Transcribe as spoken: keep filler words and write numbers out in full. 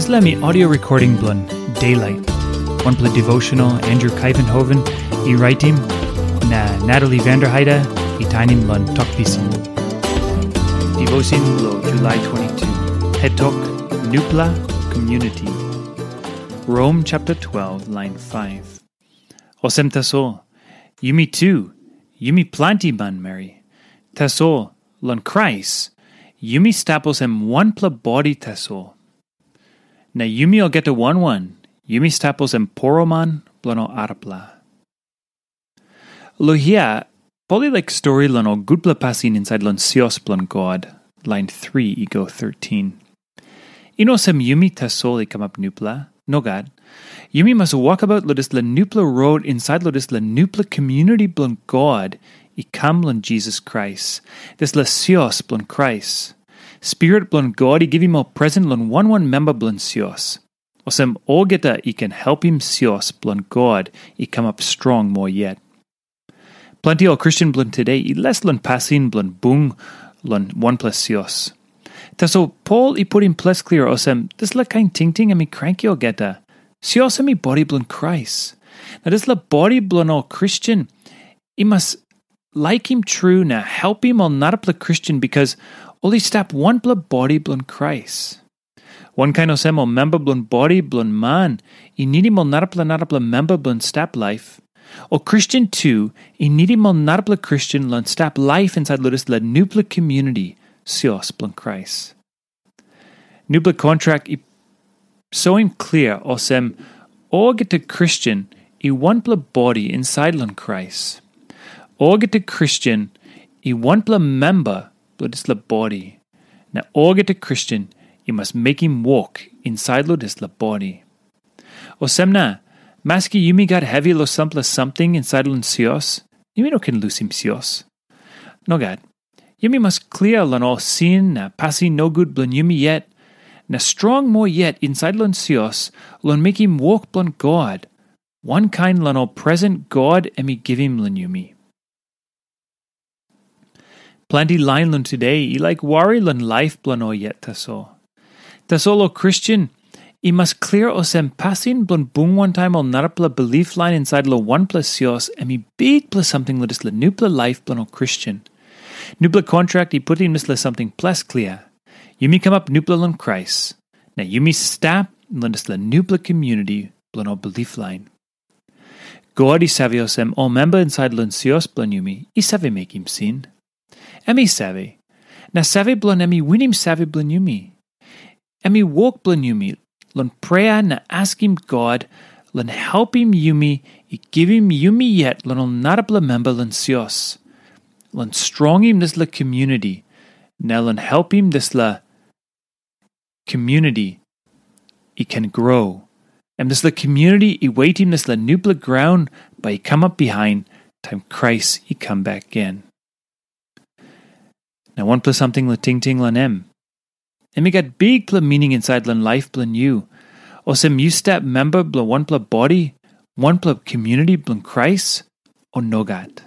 Dispela mi audio recording bilong Daylight, wanpela devotional Andrew Kaivenhoven i raitim, na Natalie Vanderheide i tainim long Tok Pisin. Devotion lo July twenty-two. Het tok, Nupla Community. Rom chapter twelve, line five. Olsem tasol, yumi tu, yumi planti manmeri. Tasol, long Krais, yumi stap olsem wanpela bodi tasol. Na yumi olgeta wan wan, yumi stap olsem poroman bilong ol arapela. Lo hia, Pol i laik stori long ol gutpela pasin insait long sios bilong God, lain three i go thirteen. I no olsem yumi tasol i kamap nupela, nogat. Yumi mas wokabaut long dispela nupela rot insait long dispela nupela community bilong God i kam long Jisas Krais, dispela sios bilong Krais. Spirit bilong God i givim ol present long wan wan memba bilong sios. Olsem olgeta i ken helpim sios bilong God i kamap strong moa yet. Planti ol Kristen bilong today i les long pasin bilong bung long wanpela sios. Tasol Pol i putim ples klia olsem, dispela kain tingting em i kranki olgeta. Sios em i bodi bilong Krais. Na dispela bodi bilong ol Kristen i mas laikim tru na helpim ol narapela Kristen, bikas ol i stap wanpela bodi bilong Krais. Wankain olsem ol memba bilong bodi bilong man i nidim ol narapela narapela memba bilong stap laip, ol Kristen tu i nidim ol narapela Kristen long stap laip insait long dispela nupela community, sios bilong Krais. Nupela kontrak i soim klia olsem, olgeta Kristen i wanpela bodi insait long Krais. Olgeta Kristen i wanpela memba bilong dispela bodi, na olgeta Kristen i mas mekim wok insait long dispela bodi. Olsem na, maski yumi gat hevi long sampela samting insait long sios, yumi no ken lusim sios. Nogat, yumi mas klia long ol sin na pasin nogut bilong yumi yet, na strong moa yet insait long sios long mekim wok bilong God, wankain long ol present God em i givim long yumi. Planti lain long today i laik wari long laip bilong ol yet tasol. Tasol ol Kristen i mas klia olsem, pasin bilong bung wantaim ol narapela bilip lain insait long wanpela sios em i bikpela samting long dispela nupela laip bilong ol Kristen. Nupela kontrak i putim dispela samting ples klia. Yumi kamap nupela long Krais, na yumi stap long dispela nupela community bilong ol bilip lain. God i save olsem, ol memba insait long sios bilong yumi i save mekim sin. Em i save, na save bilong em i winim save bilong yumi. Em i wok bilong yumi long prea na askim God long helpim yumi i givim yumi yet long ol narapela memba long sios, long strongim dispela community, na long helpim dispela community i ken grow. Em dispela community i wetim dispela nupela graun bai i kamap bihain taim Krais i kam bek gen. Na wanpela samting long tingting long em. Em i gat bikpela meaning insait long laip bilong yu. Olsem yu stap memba bilong wanpela bodi, wanpela community bilong Krais, o nogat.